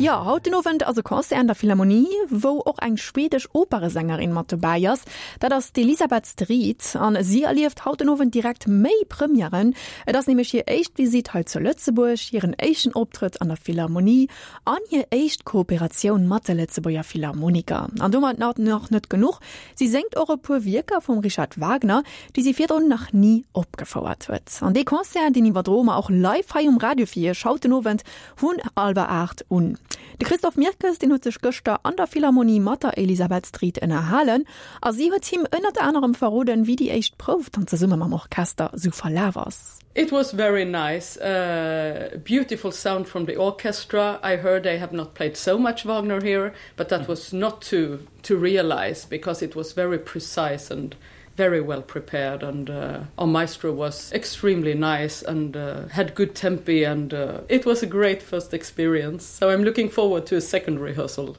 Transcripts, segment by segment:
Jo, haut den Owend ass e Concert an der Philharmonie, wou och eng schwedesch Operesängerin mat dobäi ass. Dat ass d'Elisabeth Strid an si erlieft haut den Owend direkt méi Premièren. Et ass nämlech hir éischt Visitt hei zu Lëtzebuerg, hiren éischten Optrëtt an der Philharmonie an hir éischt Kooperatioun mat de Lëtzebuerger Philharmoniker. An domat nach net genuch, Si séngt och e puer Wierker vum Richard Wagner, déi si virdrun nach ni opgefouert huet. An dee Concert, deen iwwerdroe mer och live hei um Radio fir Iech haut den Owend vun hallwer 8 un. De Christophe Mirkes, deen huet sech gëschter an der Philharmonie mat der Elisabeth Strid ënnerhalen a si huet him ënnert anerem verroden, wéi déi éischt Prouf dann zesumme mam Orchester sou verlaf ass. It was very nice, uh, beautiful sound from the orchestra. I heard they have not played so much Wagner here, but that was not too to realize because it was very precise and very well prepared and uh, our maestro was extremely nice and uh, had good tempi and uh, it was a great first experience so I'm looking forward to a second rehearsal.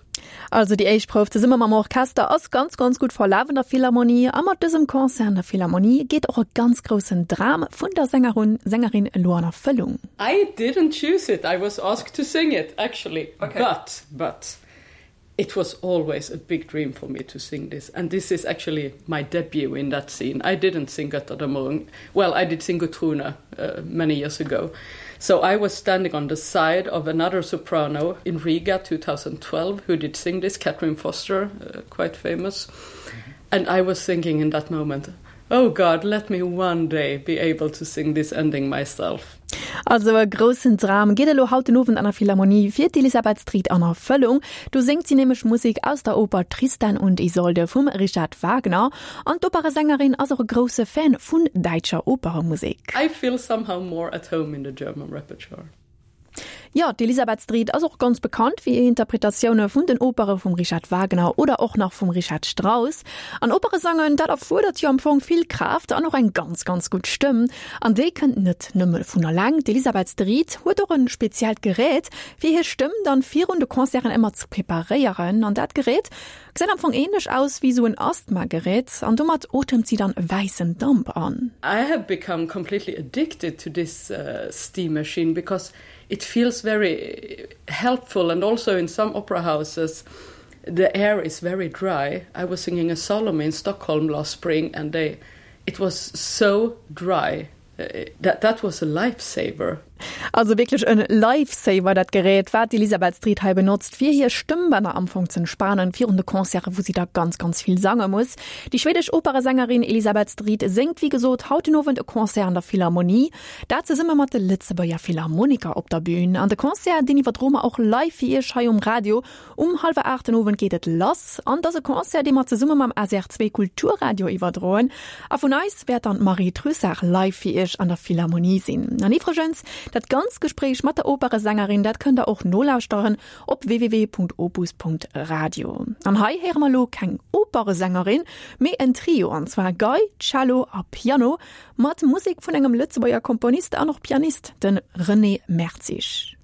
Also déi éischt Prouf zesumme mam Orchester ass ganz ganz gutt verlaf an der Philharmonie a mat dësem Concert an der Philharmonie geet och e ganz groussen Dram vun der Sängerun Sängerin elo an Erfëllung. I didn't choose it, I was asked to sing it actually okay. but but it was always a big dream for me to sing this and this is actually my debut in that scene I didn't sing Götterdämmerung well I did sing Gutrune uh, many years ago so I was standing on the side of another soprano in Riga 2012 who did sing this Catherine Foster uh, quite famous mm -hmm. and I was thinking in that moment oh God let me one day be able to sing this ending myself Also e groussen Dram geet elo haut den Owend an der Philharmonie fir d'Elisabeth Strid an Erfëllung. Do séngt si nämlech Musek aus der Oper Tristan und Isolde vum Richard Wagner. An d'Operesängerin ass och e grousse Fan vun däitscher Operemusek. I feel somehow more at home in the German repertoire. Jo, d'Elisabeth Strid ass och ganz bekannt fir hir Interpretatioune vun den Opere vum Richard Wagner oder och nach vum Richard Strauss. An Opere sangen, dat erfuerdert jo am Fong vill Kraaft an och eng ganz, ganz gutt Stëmm. An déi kënnt net nëmme vun eleng. D'Elisabeth Strid huet och e speziellt Gerät, fir hir Stëmm dann virun de Concerten ëmmer ze preparéieren. An dat Gerät gesäit am Fong änlech aus wéi sou en Asthma-Gerät an domat otemt si dann wäissen Damp an. I have become completely addicted to this steam machine because it feels very helpful and also in some opera houses the air is very dry. I was singing a Salome in Stockholm last spring and they it was so dry that that was a lifesaver. Also wierklech en Lifesaver dat Gerät wat d'Elisabeth Strid hei benotzt fir hir Stëmmbänner am Fong z'entspanen virun de Concerte wou si da ganz ganz vill sange muss. Déi schwedesch Operesängerin Elisabeth Strid séngt wéi gesot haut den Owend e Concert an der Philharmonie, dat zesumme mat de Lëtzebuerger Philharmoniker op der Bün. An de Concert deen iwwerdroe mer och live fir iech hei um Radio. Um hallwer 8 den Owend geet et lass an et ass e Concert, dee mer zesumme mam SR2 Kulturradio iwwerdroen. A vun eis wäert dann d'Marie Trussart live fir iech an der Philharmonie sinn. An iwwregens, dat ganzt Gespréich mat der Operesängerin, dat kënnt der och nolauschteren op www.opus.radio. An hei héiere mer elo keng Operesängerin, mee en Trio, an zwar Gei, Cello a Piano, mat Musek vun engem Lëtzebuerger Komponist an och Pianist, de René Mertzig.